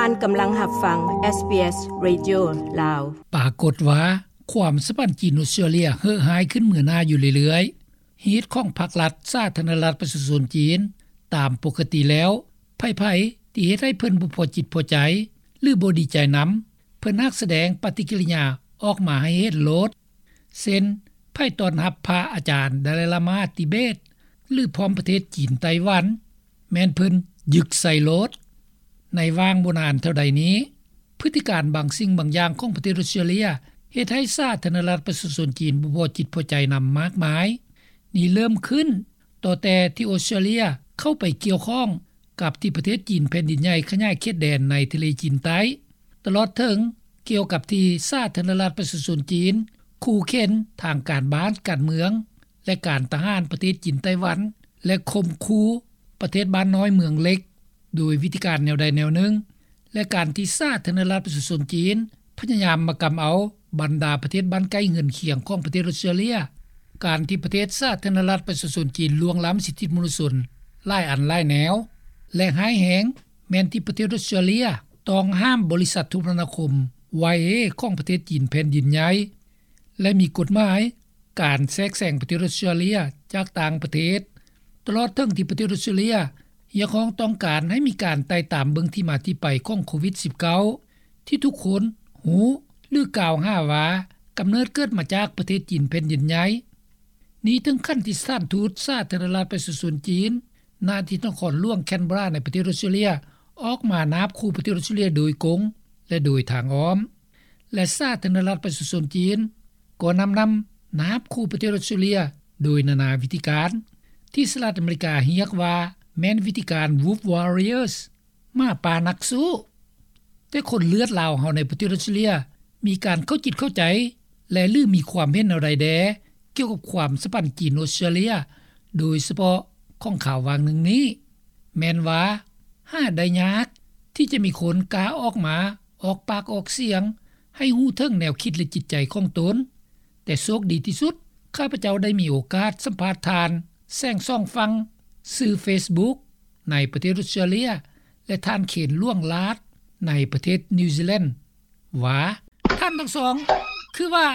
ທ່ານກຳລັງຮັບຟັງ ເອສບີເອສ ເຣດິໂອ ລາວ. ປາກົດວ່າ ຄວາມສຳພັນຈີນ-ອົດສະຕຣາເລຍ ເຮີ້ຮ້າຍຂຶ້ນເໝືອໜ້າຢູ່ເລື້ອຍໆ. ຮີດຂອງພັກລັດ ສາທາລະນະລັດ ປະຊາຊົນຈີນ. ຕາມປົກກະຕິແລ້ວ ໃຜໆທີ່ເຮັດໃຫ້ເພິ່ນບໍ່ພໍຈິດພໍໃຈ ຫຼື ບໍ່ດີໃຈນຳ, ເພິ່ນມັກສະແດງປະຕິກິລິຍາອອກມາໃຫ້ເຫັນໂລດ. ເຊັ່ນ ໃຜຕ້ອນຮັບພະອາຈານດາໄລລາມາຕິເບດ ຫຼື ພ້ອມປະເທດຈີນໄຕ້ຫວັນ, ແມ່ນເພິ່ນຍຶກໃສ່ໂລດ. ໃນຫວ່າງບໍ່ນານເທົ່າໃດນີ້, ພຶດຕິການບາງສິ່ງບາງຢ່າງຂອງປະເທດອົດສະຕຣາເລຍ ເຮັດໃຫ້ສາທາລະນະລັດປະຊາຊົນຈີນບໍ່ພໍຈິດພໍໃຈນຳມາກມາຍ. ນີ້ເລີ່ມຂຶ້ນຕໍ່ແຕ່ທີ່ອົດສະຕຣາເລຍເຂົ້າໄປກ່ຽວຂ້ອງກັບທີ່ປະເທດຈີນແຜ່ນດິນໃຫຍ່ຂະຫຍາຍເຂດແດນໃນທະເລຈີນໃຕ້, ຕະຫຼອດເຖິງກ່ຽວກັບທີ່ສາທາລະນະລັດປະຊາຊົນຈີນ ຂູ່ເຂັນທາງການບ້ານການເມືອງ ແລະ ການທະຫານປະເທດຈີນໄຕ້ຫວັນ ແລະ ຂົ່ມຂູ່ປະເທດບ້ານນ້ອຍເມືອງເລັກ ໂດຍວິທີການແນວໃດແນວໜຶ່ງ ແລະ ການທີ່ສາທາລະນະລັດປະຊາຊົນຈີນພະຍາຍາມມາກຳເອົາບັນດາປະເທດບ້ານໃກ້ເຮືອນຄຽງຂອງປະເທດອົດສະຕຣາເລຍ, ການທີ່ປະເທດສາທາລະນະລັດປະຊາຊົນຈີນລ່ວງລ້ຳສິດທິມະນຸດຊົນຫຼາຍອັນຫຼາຍແນວ ແລະ ຮ້າຍແຮງແມ່ນທີ່ປະເທດອົດສະຕຣາເລຍຕ້ອງຫ້າມບໍລິສັດໂທລະນາຄົມ ວາຍເອ ຂອງປະເທດຈີນແຜ່ນດິນໃຫຍ່ ແລະ ມີກົດໝາຍການແຊກແຊງປະເທດອົດສະຕຣາເລຍຈາກຕ່າງປະເທດ, ຕະຫຼອດເຖິງທີ່ປະເທດອົດສະຕຣາເລຍຮຽກຮ້ອງຕ້ອງການໃຫ້ມີການໄຕ່ຕາມເບິ່ງທີ່ມາທີ່ໄປຂອງໂຄວິດສິບເກົ້າ ທີ່ທຸກຄົນຮູ້ ຫຼື ກ່າວຫາວ່າກຳເນີດເກີດມາຈາກປະເທດຈີນແຜ່ນດິນໃຫຍ່. ນີ້ເຖິງຂັ້ນທີ່ສະຖານທູດສາທາລະນະລັດປະຊາຊົນຈີນ ນະທີ່ນະຄອນຫຼວງແຄນເບຣາໃນປະເທດອົດສະຕຣາເລຍ ອອກມານາບຂູ່ປະເທດອົດສະຕຣາເລຍໂດຍກົງ ແລະ ໂດຍທາງອ້ອມ. ແລະ ສາທາລະນະລັດປະຊາຊົນຈີນກໍນຳນຳນາບຂູ່ປະເທດອົດສະຕຣາເລຍໂດຍນານາວິທີການ ທີ່ສະຫະລັດອາເມລິກາຮຽກວ່າແມ່ນວິທີການ Wolf Warriors ໝາປ່ານັກສູ້. ແຕ່ຄົນເລືອດລາວເຮົາໃນປະເທດອົດສະຕຣາເລຍມີການເຂົ້າຈິດເຂົ້າໃຈ ແລະ ຫຼື ມີຄວາມເຫັນແນວໃດແດ່ກ່ຽວກັບຄວາມສຳພັນຈີນ-ອົດສະຕຣາເລຍ ໂດຍສະເພາະຂອງຂ່າວຫວ່າງໜຶ່ງນີ້ ແມ່ນວ່າຫາໄດ້ຍາກທີ່ຈະມີຄົນກ້າອອກມາອອກປາກອອກສຽງໃຫ້ຮູ້ເຖິງແນວຄິດ ແລະ ຈິດໃຈຂອງຕົນ. ແຕ່ໂຊກດີທີ່ສຸດ ຂ້າພະເຈົ້າໄດ້ມີໂອກາດສຳພາດທ່ານແສງສອງຝັ່ງ ຊື່ເຟສບຸກ ໃນປະເທດອົດສະຕຣາເລຍ ແລະ ທ່ານເຄນ ຫຼວງລາດ ໃນປະເທດນິວຊີແລນ ວ່າ ທ່ານທັງສອງ ຄືວ່າ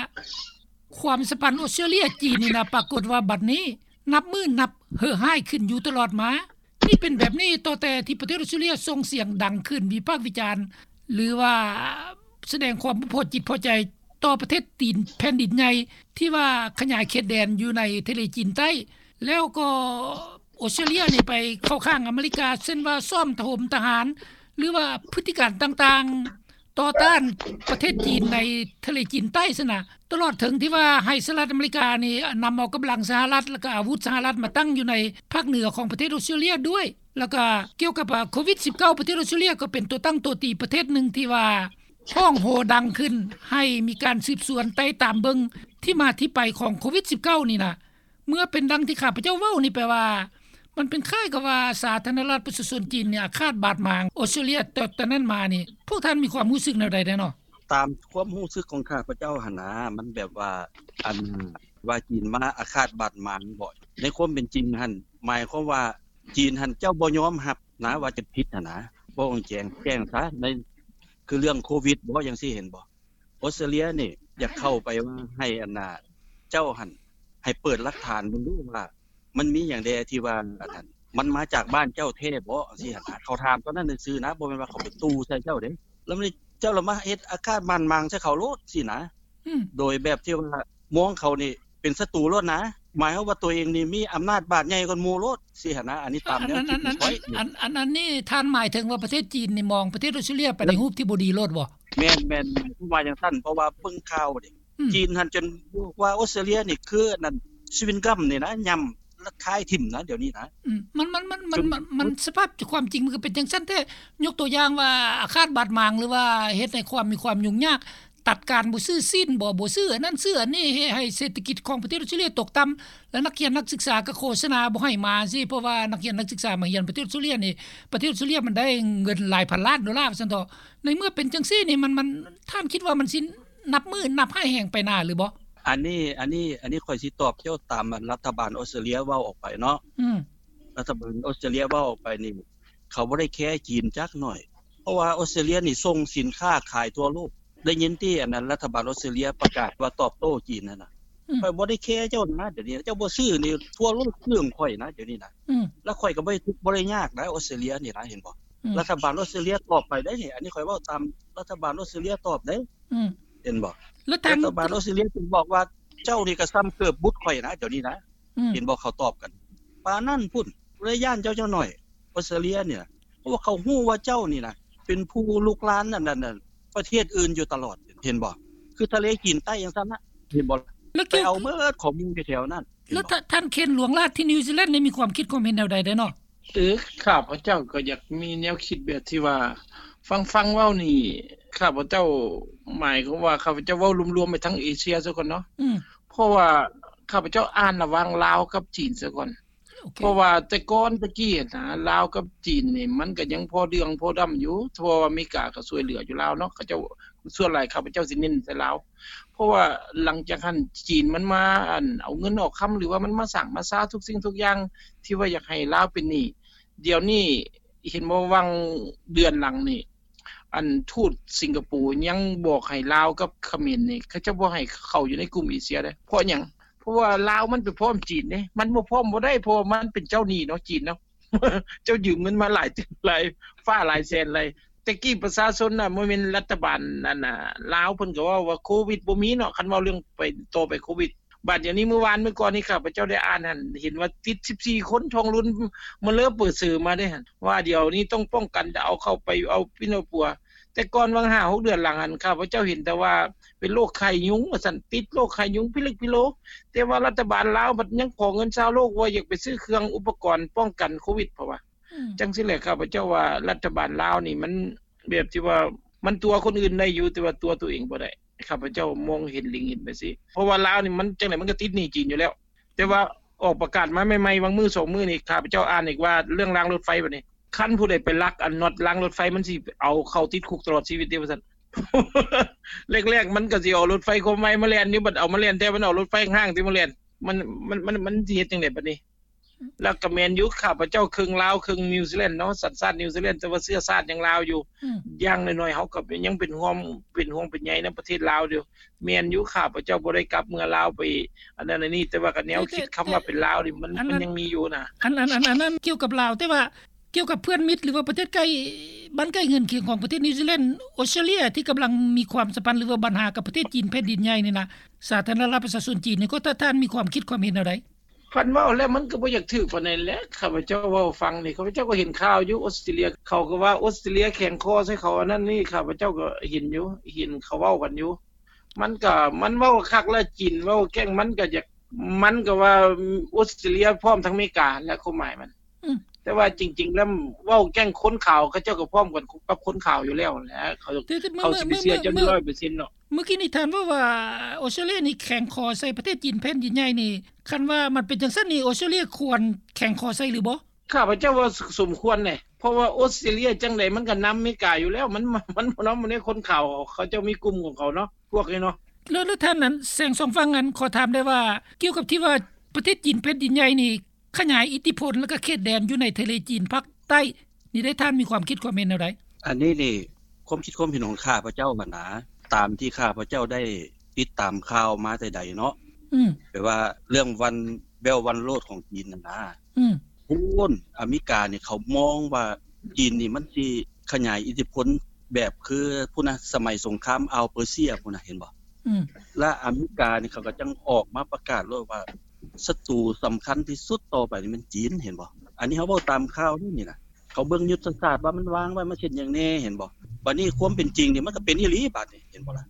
ຄວາມສຳພັນອົດສະຕຣາເລຍ-ຈີນນີ້ນະ ປາກົດວ່າບັດນີ້ນັບມື້ນັບເຮີ້ຮ້າຍຂຶ້ນຢູ່ຕະຫຼອດມາ. ນີ້ເປັນແບບນີ້ຕໍ່ແຕ່ທີ່ປະເທດອົດສະຕຣາເລຍສົ່ງສຽງດັງຂຶ້ນວິພາກວິຈານ ຫຼືວ່າສະແດງຄວາມບໍ່ພໍຈິດພໍໃຈຕໍ່ປະເທດຈີນແຜ່ນດິນໃຫຍ່ ທີ່ວ່າຂະຫຍາຍເຂດແດນຢູ່ໃນທະເລຈີນໃຕ້ ແລ້ວກໍ ອົດສະຕຣາເລຍນີ້ໄປເຂົ້າຂ້າງອາເມລິກາ ເຊັ່ນວ່າຊ້ອມຖະຫົມທະຫານ ຫຼືວ່າພຶດຕິການຕ່າງໆຕໍ່ຕ້ານປະເທດຈີນໃນທະເລຈີນໃຕ້ຊັ້ນນະ, ຕະຫຼອດເຖິງທີ່ວ່າໃຫ້ສະຫະລັດອາເມລິການີ້ນຳເອົາກຳລັງສະຫະລັດ ແລ້ວກໍອາວຸດສະຫະລັດມາຕັ້ງຢູ່ໃນພາກເໜືອຂອງປະເທດອົດສະຕຣາເລຍດ້ວຍ. ແລ້ວກໍກ່ຽວກັບ ອາ ໂຄວິດສິບເກົ້າ ປະເທດອົດສະຕຣາເລຍກໍເປັນຕົວຕັ້ງຕົວຕີປະເທດໜຶ່ງທີ່ວ່າຮ້ອງໂຮດັງຂຶ້ນ ໃຫ້ມີການສືບສວນໄຕ່ຕາມເບິ່ງທີ່ມາທີ່ໄປຂອງໂຄວິດສິບເກົ້ານີ້ນະ. ເມື່ອເປັນດັ່ງທີ່ຂ້າພະເຈົ້າເວົ້ານີ້ ແປວ່າມັນເປັນຄ້າຍກັບວ່າສາທາລະນະລັດປະຊາຊົນຈີນນີ້ອາຄາດບາດໝາງອົດສະຕຣາເລຍ ແຕ່ ແຕ່ນັ້ນມານີ້ ພວກທ່ານມີຄວາມຮູ້ສຶກແນວໃດແດ່ເນາະ? ຕາມຄວາມຮູ້ສຶກຂອງຂ້າພະເຈົ້າຫັ້ນນາ ມັນແບບວ່າ ອັນວ່າຈີນມາອາຄາດບາດໝາງບໍ? ໃນຄວາມເປັນຈິງຫັ້ນ ໝາຍຄວາມວ່າຈີນຫັ້ນເຈົ້າບໍ່ຍອມຮັບນາວ່າຈະຜິດຫັ້ນນາ. ເວົ້າແຈ້ງ ແຈ້ງຊະ ໃນ ຄືເລື່ອງໂຄວິດບໍ ຈັ່ງຊີ້ ເຫັນບໍ່? ອົດສະຕຣາເລຍນີ້ຢາກເຂົ້າໄປວ່າໃຫ້ອັນນ່າ ເຈົ້າຫັ້ນໃຫ້ເປີດຫຼັກຖານເບິ່ງດູວ່າ ມັນມີຫຍັງແດ່ທີ່ວ່າອັນນັ້ນ ມັນມາຈາກບ້ານເຈົ້າແທ້ບໍ ຈັ່ງຊີ້ຫັ້ນນະ. ເຂົາຖາມຕອນນັ້ນຊື່ໆນະ ບໍ່ແມ່ນວ່າເຂົາໄປຕູ້ໃສ່ເຈົ້າເດ້. ແລ້ວນີ້ເຈົ້າລະມາເຮັດອາຄາດບາດໝາງໃສ່ເຂົາໂລດຊີ້ນະ. ອືມ ໂດຍແບບທີ່ວ່າມອງເຂົານີ້ເປັນສັດຕູໂລດນະ. ໝາຍຄວາມວ່າຕົວເອງນີ້ມີອຳນາດບາດໃຫຍ່ກວ່າໝູ່ໂລດຊີ້ຫັ້ນນະ. ອັນນີ້ຕາມແນວຄິດຂອງຂ້ອຍ. ອັນ ອັນ ອັນນີ້ທ່ານໝາຍເຖິງວ່າປະເທດຈີນນີ້ມອງປະເທດອົດສະຕຣາເລຍໄປໃນຮູບທີ່ບໍ່ດີໂລດບໍ? ແມ່ນ ແມ່ນ ໝາຍຄວາມວ່າຈັ່ງຊັ້ນ ເພາະວ່າເບິ່ງຂ່າວນີ້ ອືມ ຈີນຫັ້ນຈົນບອກວ່າອົດສະຕຣາເລຍນີ້ຄືອັນນັ້ນ ຊະວິງກັມນີ້ນະ ຫຍ້ຳລະຄາຍຖິ້ມນະ ດຽວນີ້ນະ. ອືມ ມັນ ມັນ ມັນ ມັນ ສະພາບຄວາມຈິງມັນກໍເປັນຈັ່ງຊັ້ນແທ້. ຍົກຕົວຢ່າງວ່າອາຄາດບາດໝາງ ຫຼືວ່າເຮັດໃຫ້ຄວາມ ມີຄວາມຫຍຸ້ງຍາກ ຕັດການບໍ່ຊື້ຊີ້ນບໍ ບໍ່ຊື້ອັນນັ້ນຊື້ອັນນີ້ ເຮັດໃຫ້ເສດຖະກິດຂອງປະເທດອົດສະຕຣາເລຍຕົກຕ່ຳ ແລະ ນັກຮຽນນັກສຶກສາກໍໂຄສະນາບໍ່ໃຫ້ມາຊີ້ ເພາະວ່ານັກຮຽນນັກສຶກສາມາຮຽນປະເທດອົດສະຕຣາເລຍນີ້ ປະເທດອົດສະຕຣາເລຍມັນໄດ້ເງິນຫຼາຍພັນລ້ານໂດລາວ່າຊັ້ນເຖາະ. ໃນເມື່ອເປັນຈັ່ງຊີ້ນີ້ ມັນ ມັນ ທ່ານຄິດວ່າມັນຊິນັບມື້ນັບຮ້າຍແຮງໄປໜ້າຫຼືບໍ່? ອັນນີ້ ອັນນີ້ ອັນນີ້ຂ້ອຍຊິຕອບເຈົ້າຕາມລັດຖະບານອົດສະຕຣາເລຍເວົ້າອອກໄປເນາະ. ອືມ ລັດຖະບານອົດສະຕຣາເລຍເວົ້າອອກໄປນີ້ ເຂົາບໍ່ໄດ້ແຄຈີນຈັກໜ້ອຍ. ເພາະວ່າອອສເຕຣເລຍນີ້ສົ່ງສິນຄ້າຂາຍທົ່ວໂລກ. ໄດ້ຍິນຕິ ອັນນັ້ນ ລັດຖະບານອອສເຕຣເລຍປະກາດວ່າຕອບໂຕ້ຈີນຫັ້ນນະ. ອືມ ຂ້ອຍບໍ່ໄດ້ແຄເຈົ້ານະ ດຽວນີ້ເຈົ້າບໍ່ຊື້ນີ້ ທົ່ວໂລກຊື້ຂອງຂ້ອຍນະ ດຽວນີ້ນະ. ອືມ ແລ້ວຂ້ອຍກໍບໍ່ໄດ້ທຸກບໍ່ໄດ້ຍາກນະ ອອສເຕຣເລຍນີ້ນະ ເຫັນບໍ່? ອືມ ລັດຖະບານອອສເຕຣເລຍຕອບໄປໄດ໋ນີ້ ອັນນີ້ຂ້ອຍເວົ້າຕາມລັດຖະບານອອສເຕຣເລຍຕອບໄດ໋. ອືມ ເຫັນບໍ່? ແລ້ວທາງ ລັດຖະບານອອສເຕຣເລຍຈຶ່ງບອກວ່າ ເຈົ້ານີ້ກໍສ່ຳເກີບບຸດຂ້ອຍນະ ດຽວນີ້ນະ. ອືມ ເຫັນບໍ່? ເຂົາຕອບກັນປານນັ້ນພຸ້ນ. ບໍ່ໄດ້ຢ້ານເຈົ້າຈັກໜ້ອຍ ອອສເຕຣເລຍນີ້ນະ ເພາະວ່າເຂົາຮູ້ວ່າເຈົ້ານີ້ນະ ເປັນຜູ້ລຸກລານອັນນັ້ນ ປະເທດອື່ນຢູ່ຕະຫຼອດ ເຫັນບໍ່? ຄືທະເລຈີນໃຕ້ຈັ່ງຊັ້ນນະ ເຫັນບໍ່? ແລ້ວໄປເອົາໝົດຂອງໝູ່ຢູ່ແຖວນັ້ນ ແລ້ວທ່ານເຄນ ຫຼວງລາດທີ່ນິວຊີແລນນີ້ ມີຄວາມຄິດຄວາມເຫັນແນວໃດແດ່ເນາະ? ເອີ ຂ້າພະເຈົ້າກໍຢາກມີແນວຄິດແບບທີ່ວ່າ ຟັງໆເວົ້ານີ້ ຂ້າພະເຈົ້າ ໝາຍຄວາມວ່າ ຂ້າພະເຈົ້າເວົ້າລວມໆໄປທັງເອເຊຍຊະກ່ອນເນາະ. ອືມ ເພາະວ່າຂ້າພະເຈົ້າອ່ານລະຫວ່າງລາວກັບຈີນຊະກ່ອນ. ໂອເຄ ເພາະວ່າແຕ່ກ່ອນແຕ່ກີ້ຫັ້ນນະ ລາວກັບຈີນນີ້ ມັນກໍຍັງພໍເດືອງພໍດຳຢູ່ ເພາະວ່າອາເມລິກາກໍຊ່ວຍເຫຼືອຢູ່ລາວເນາະ ເຂົາເຈົ້າ ສ່ວນຫຼາຍຂ້າພະເຈົ້າຊິເນັ້ນໃສ່ລາວ. ເພາະວ່າຫຼັງຈາກຫັ້ນ ຈີນມັນມາ ອັນ ເອົາເງິນເອົາຄຳ ຫຼືວ່າມັນມາສ້າງມາຊາທຸກສິ່ງທຸກຢ່າງ ທີ່ວ່າຢາກໃຫ້ລາວເປັນໜີ້. ດຽວນີ້ເຫັນບໍ່ ຫວ່າງເດືອນຫຼັງນີ້ ອັນ ທູດສິງກະໂປຍັງບອກໃຫ້ລາວກັບຂະເໝນນີ້ ເຂົາເຈົ້າບໍ່ໃຫ້ເຂົ້າຢູ່ໃນກຸ່ມເອເຊຍເດ້. ເພາະຫຍັງ? ເພາະວ່າລາວມັນໄປພ້ອມຈີນເດ້ ມັນບໍ່ພ້ອມບໍ່ໄດ້ ເພາະວ່າມັນເປັນເຈົ້າໜີ້ເນາະ ຈີນເນາະ ເຈົ້າຢືມເງິນມາຫຼາຍ ຫຼາຍຟ້າຫຼາຍແສນຫຼາຍ. ແຕ່ກີ້ປະຊາຊົນນະ ບໍ່ແມ່ນລັດຖະບານ ອັນນະ ລາວ ເພິ່ນກໍເວົ້າວ່າໂຄວິດບໍ່ມີເນາະ ຄັນເວົ້າເລື່ອງໄປຕໍ່ໄປໂຄວິດ. ບາດດຽວນີ້ ມື້ວານມື້ກ່ອນນີ້ ຂ້າພະເຈົ້າໄດ້ອ່ານຫັ້ນ ເຫັນວ່າຕິດສິບສີ່ຄົນ ທ້ອງລຸນມາເລີເປີເຊີມາເດ້ຫັ້ນ ວ່າດຽວນີ້ຕ້ອງປ້ອງກັນ ຈະເອົາເຂົ້າໄປເອົາປິ່ນເອົາປົວ. ແຕ່ກ່ອນຫວ່າງຫ້າຫົກເດືອນຫຼັງຫັ້ນ ຂ້າພະເຈົ້າເຫັນແຕ່ວ່າເປັນໂລກໄຂ້ຍຸງວ່າຊັ້ນ ຕິດໂລກໄຂ້ຍຸງພິລຶກພິໂລ. ແຕ່ວ່າລັດຖະບານລາວບັດຍັງຂໍເງິນຊາວໂລກວ່າຢາກໄປຊື້ເຄື່ອງອຸປະກອນປ້ອງກັນໂຄວິດ ເພາະວ່າ ອືມ ຈັ່ງຊີ້ແຫຼະ ຂ້າພະເຈົ້າວ່າລັດຖະບານລາວນີ້ ມັນແບບທີ່ວ່າມັນຕົວະຄົນອື່ນໄດ້ຢູ່ ແຕ່ວ່າຕົວະຕົວເອງບໍ່ໄດ້. ຂ້າພະເຈົ້າມອງເຫັນ ເລັງເຫັນໄປຊີ້ ເພາະວ່າລາວນີ້ມັນຈັ່ງໃດມັນກໍຕິດໜີ້ຈີນຢູ່ແລ້ວ. ແຕ່ວ່າອອກປະກາດມາໃໝ່ໆ ຫວ່າງມື້ສອງມື້ນີ້ ຂ້າພະເຈົ້າອ່ານອີກວ່າເລື່ອງລາງລົດໄຟບັດນີ້ ຄັນຜູ້ໃດໄປລັກອັນນັອດລາງລົດໄຟ ມັນຊິເອົາເຂົ້າຕິດຄຸກຕະຫຼອດຊີວິດເດ້ວ່າຊັ້ນ. ແລກໆ ມັນກໍຊິເອົາລົດໄຟຄວາມໄວມາແລ່ນຢູ່ ບັດເອົາມາແລ່ນແທ້ ມັນເອົາລົດໄຟຫ້າງຕິມາແລ່ນ ມັນ ມັນ ມັນ ມັນຊິເຮັດຈັ່ງໃດບັດນີ້? ແລ້ວກໍແມ່ນຢູ່ ຂ້າພະເຈົ້າເຄິ່ງລາວເຄິ່ງນິວຊີແລນເນາະ ສັນຊາດນິວຊີແລນ ແຕ່ວ່າເຊື້ອຊາດຍັງລາວຢູ່. ອືມ ຢ່າງໜ້ອຍໆ ເຮົາກໍຍັງເປັນຫ່ວງ ເປັນຫ່ວງເປັນໃຍນຳປະເທດລາວຢູ່. ແມ່ນຢູ່ ຂ້າພະເຈົ້າບໍ່ໄດ້ກັບເມືອລາວໄປອັນນັ້ນອັນນີ້ ແຕ່ວ່າກໍແນວຄິດ ແຕ່ ຄຳວ່າເປັນລາວນີ້ ມັນ ມັນຍັງມີຢູ່ນະ. ອັນ ອັນ ອັນ ອັນນັ້ນກ່ຽວກັບລາວ ແຕ່ວ່າກ່ຽວກັບເພື່ອນມິດ ຫຼືວ່າປະເທດໃກ້ ບ້ານໃກ້ເຮືອນຄຽງຂອງປະເທດນິວຊີແລນ ອອສເຕຣເລຍ ທີ່ກຳລັງມີຄວາມສຳພັນ ຫຼືວ່າບັນຫາກັບປະເທດຈີນແຜ່ນດິນໃຫຍ່ນີ້ນະ ສາທາລະນະລັດປະຊາຊົນຈີນນີ້ ກໍ ທ່ານ ທ່ານມີຄວາມຄິດຄວາມເຫັນແນວໃດ? ຄັນເວົ້າແລ້ວມັນກໍບໍ່ຢາກຖືກປານໃດແຫຼະ ຂ້າພະເຈົ້າເວົ້າຟັງນີ້ ຂ້າພະເຈົ້າກໍເຫັນຂ່າວຢູ່ ອອສເຕຣເລຍ ເຂົາກໍວ່າອອສເຕຣເລຍແຂງຄໍໃສ່ເຂົາ ອັນນັ້ນນີ້ ຂ້າພະເຈົ້າກໍເຫັນຢູ່ ເຫັນເຂົາເວົ້າກັນຢູ່. ມັນກໍ ມັນເວົ້າຄັກແລ້ວ ຈີນເວົ້າແກ້ງ ມັນກໍຢາກ ມັນກໍວ່າອອສເຕຣເລຍພ້ອມທັງອາເມລິກາແຫຼະ ຄວາມໝາຍມັນ. ອືມ ແຕ່ວ່າຈິງໆແລ້ວ ເວົ້າແກ້ງຄົນຂາວ ເຂົາເຈົ້າກໍພ້ອມກັນກັບຄົນຂາວຢູ່ແລ້ວແຫຼະ ເຂົາ ເຂົາຊິໄປເຊື່ອເຈົ້າຮ້ອຍເປີເຊັນເນາະ. ເມື່ອກີ້ນີ້ທ່ານເວົ້າວ່າອອສເຕຣເລຍນີ້ແຂງຄໍໃສ່ປະເທດຈີນແຜ່ນດິນໃຫຍ່ນີ້ ຄັນວ່າມັນເປັນຈັ່ງຊັ້ນນີ້ ອອສເຕຣເລຍຄວນແຂງຄໍໃສ່ຫຼືບໍ່? ຂ້າພະເຈົ້າວ່າສົມຄວນເດ ເພາະວ່າອອສເຕຣເລຍຈັ່ງໃດມັນກໍນຳອາເມລິກາຢູ່ແລ້ວ ມັນ ມັນບໍ່ນຳ ມັນໃນຄົນຂາວ ເຂົາເຈົ້າມີກຸ່ມຂອງເຂົາເນາະ ພວກນີ້ເນາະ. ແລ້ວ ແລ້ວທ່ານນັ້ນ ແສງສອງຝັ່ງນັ້ນ ຂໍຖາມໄດ້ວ່າ ກ່ຽວກັບທີ່ວ່າປະເທດຈີນແຜ່ນດິນໃຫຍ່ນີ້ ຂະຫຍາຍອິດທິພົນ ແລ້ວກໍເຂດແດນຢູ່ໃນທະເລຈີນພາກໃຕ້ນີ້ໄດ້ ທ່ານມີຄວາມຄິດຄວາມເຫັນແນວໃດ? ອັນນີ້ນີ້ ຄວາມຄິດຄວາມເຫັນຂອງຂ້າພະເຈົ້າຫັ້ນນາ ຕາມທີ່ຂ້າພະເຈົ້າໄດ້ຕິດຕາມຂ່າວມາແຕ່ໃດເນາະ ອືມ ແປວ່າເລື່ອງ One Belt One Road ຂອງຈີນຫັ້ນນາ ອືມ ພຸ້ນ ອາເມລິການີ້ເຂົາມອງວ່າຈີນນີ້ມັນຊິຂະຫຍາຍອິດທິພົນແບບຄືພຸ້ນນະ ສະໄໝສົງຄາມອ່າວເປີເຊຍພຸ້ນນະ ເຫັນບໍ່? ອືມ ແລະ ອາເມລິການີ້ເຂົາກໍຈັ່ງອອກມາປະກາດໂລດວ່າ ສັດຕູສຳຄັນທີ່ສຸດຕໍ່ໄປນີ້ແມ່ນຈີນ ເຫັນບໍ່? ອັນນີ້ເຮົາເວົ້າຕາມຂ່າວນີ້ນະ ເຂົາເບິ່ງຍຸດທະສາດວ່າມັນວາງໄວ້ ມັນເຮັດຫຍັງແດ່ ເຫັນບໍ່? ບາດນີ້ຄວາມເປັນຈິງນີ້ ມັນກໍເປັນອີ່ຫຼີບາດນີ້ ເຫັນບໍ່ລະ?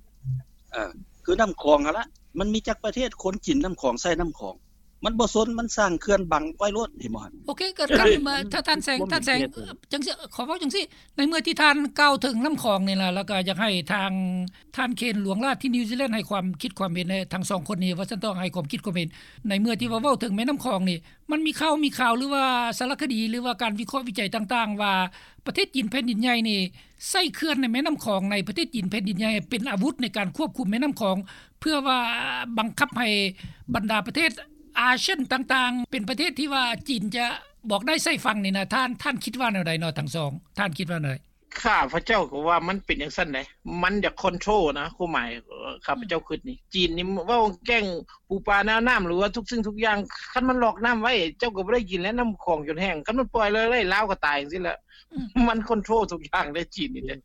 ເອີ ຄືນ້ຳຂອງຫັ້ນລະ ມັນມີຈັກປະເທດຄົນກິນນ້ຳຂອງ ໃຊ້ນ້ຳຂອງ ມັນບໍ່ສົນ ມັນສ້າງເຂື່ອນບັງໄວ້ໂລດ ເຫັນບໍ່ຫັ້ນ? ໂອເຄ ກໍ ທ່ານ ທ່ານແສງ ທ່ານແສງ ຈັ່ງຊີ້ ຂໍເວົ້າຈັ່ງຊີ້ ໃນເມື່ອທີ່ທ່ານກ່າວເຖິງນ້ຳຂອງນີ້ລະ ແລ້ວກໍຢາກໃຫ້ທາງ ທ່ານເຄນ ຫຼວງລາດທີ່ນິວຊີແລນ ໃຫ້ຄວາມຄິດຄວາມເຫັນ ທັງສອງຄົນນີ້ ວ່າຊັ້ນເຖາະ ໃຫ້ຄວາມຄິດຄວາມເຫັນ ໃນເມື່ອທີ່ວ່າເວົ້າເຖິງແມ່ນ້ຳຂອງນີ້ ມັນມີຂ່າວ ມີຂ່າວ ຫຼືວ່າສາລະຄະດີ ຫຼືວ່າການວິເຄາະວິໄຈຕ່າງໆ ວ່າປະເທດຈີນແຜ່ນດິນໃຫຍ່ນີ້ ໃຊ້ເຂື່ອນໃນແມ່ນ້ຳຂອງ ໃນປະເທດຈີນແຜ່ນດິນໃຫຍ່ ເປັນອາວຸດໃນການຄວບຄຸມແມ່ນ້ຳຂອງ ເພື່ອວ່າບັງຄັບໃຫ້ບັນດາປະເທດອາຊຽນຕ່າງໆ ເປັນປະເທດທີ່ວ່າຈີນຈະບອກໄດ້ໃສ່ຟັງນີ້ນະ ທ່ານ ທ່ານຄິດວ່າແນວໃດເນາະ ທັງສອງ ທ່ານຄິດວ່າແນວໃດ? ຂ້າພະເຈົ້າກໍວ່າມັນເປັນຈັ່ງຊັ້ນໃດ໋ ມັນຢາກຄອນໂທຣນະ ຄວາມໝາຍຂ້າພະເຈົ້າຄຶດນີ້ ຈີນນີ້ເວົ້າແກ້ງປູປາແນວນ້ຳ ຫຼືວ່າທຸກສິ່ງທຸກຢ່າງ ຄັນມັນລອກນ້ຳໄວ້ ເຈົ້າກໍບໍ່ໄດ້ກິນແລ້ວ ນ້ຳຂອງຈົນແຫ້ງ ຄັນມັນປ່ອຍເລີຍ ລາວກໍຕາຍຈັ່ງຊີ້ແຫຼະ ມັນຄອນໂທຣທຸກຢ່າງເດ້ຈີນນີ້ເດ້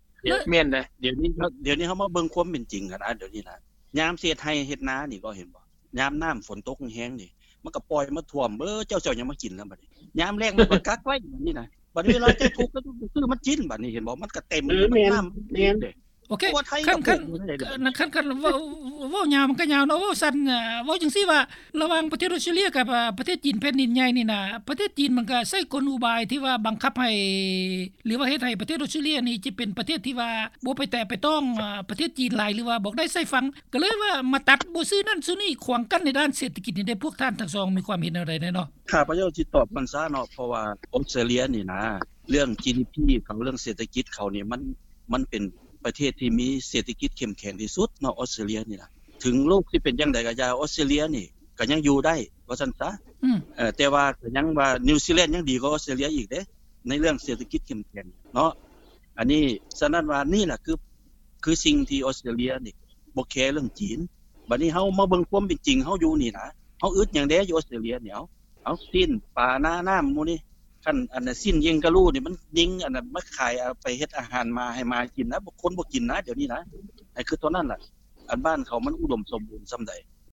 ແມ່ນເດ້. ດຽວນີ້ ດຽວນີ້ເຮົາມາເບິ່ງຄວາມເປັນຈິງກັນ ດຽວນີ້ນະ ຍາມຊິເຮັດໄຮ່ເຮັດນານີ້ກໍເຫັນບໍ່ ຍາມນ້ຳຝົນຕົກແຮງໆນີ້ ມັນກໍປ່ອຍມາຖ້ວມ ເອີ ເຈົ້າຊິເອົາຫຍັງມາກິນລະບັດນີ້ ຍາມແລ້ງມັນກໍກັກໄວ້ບັດນີ້ນະ ບັດເວລາເຈົ້າທຸກກໍຕ້ອງໄປຊື້ມັນກິນບັດນີ້ ເຫັນບໍ່ ມັນກໍເຕັມ ເອີ ແມ່ນ ນ້ຳ ແມ່ນເດ້. ໂອເຄ ຄັນ ຄັນ ຄັນ ຄັນ ຄັນເວົ້າ ເວົ້າຍາວມັນກໍຍາວເນາະ ເວົ້າສັ້ນ ເອີ ເວົ້າຈັ່ງຊີ້ວ່າ ລະຫວ່າງປະເທດອອສເຕຣເລຍກັບ ອາ ປະເທດຈີນແຜ່ນດິນໃຫຍ່ນີ້ນະ ປະເທດຈີນມັນກໍໃຊ້ກົນອຸບາຍທີ່ວ່າບັງຄັບໃຫ້ ຫຼືວ່າເຮັດໃຫ້ປະເທດອອສເຕຣເລຍນີ້ຈະເປັນປະເທດທີ່ວ່າບໍ່ໄປແຕະໄປຕ້ອງ ອາ ປະເທດຈີນຫຼາຍ ຫຼືວ່າບອກໄດ້ໃສ່ຝັ່ງ ກໍເລີຍວ່າມາຕັດບໍ່ຊື້ນັ້ນຊື້ນີ້ ຂວາງກັ້ນໃນດ້ານເສດຖະກິດນີ້ເດ້. ພວກທ່ານທັງສອງມີຄວາມເຫັນແນວໃດແດ່ເນາະ? ຂ້າພະເຈົ້າຊິຕອບມັນຊະເນາະ ເພາະວ່າອອສເຕຣເລຍນີ້ນະ ເລື່ອງ ຈີດີພີ ເຂົາ ເລື່ອງເສດຖະກິດເຂົານີ້ ມັນ ມັນເປັນປະເທດທີ່ມີເສດຖະກິດເຂັ້ມແຂງທີ່ສຸດເນາະ ອອສເຕຣເລຍນີ້ນະ ເຖິງໂລກຊິເປັນຈັ່ງໃດກໍຢ່າ ອອສເຕຣເລຍນີ້ກໍຍັງຢູ່ໄດ້ວ່າຊັ້ນຊະ ອືມ ເອີ ແຕ່ວ່າກໍຍັງວ່ານິວຊີແລນຍັງດີກວ່າອອສເຕຣເລຍອີກເດ້ ໃນເລື່ອງເສດຖະກິດເຂັ້ມແຂງເນາະ. ອັນນີ້ ສະນັ້ນວ່ານີ້ລະຄື ຄືສິ່ງທີ່ອອສເຕຣເລຍນີ້ບໍ່ແຄເລື່ອງຈີນ. ບັດນີ້ເຮົາມາເບິ່ງຄວາມເປັນຈິງເຮົາຢູ່ນີ້ນະ ເຮົາອຶດຫຍັງແດ່ຢູ່ອອສເຕຣເລຍນີ້ ເອົາ ເອົາຊີ້ນປານານ້ຳໝູ່ນີ້ ຄັນອັນຊີ້ນເຢງກະລູນີ້ ມັນຍິງອັນນັ້ນມາຂາຍ ເອົາໄປເຮັດອາຫານໝາໃຫ້ໝາກິນນະ ຄົນບໍ່ກິນນະ ດຽວນີ້ນະ ໃຫ້ຄຶດເທົ່ານັ້ນລະ. ອັນບ້ານເຂົາມັນອຸດົມສົມບູນສ່ຳໃດ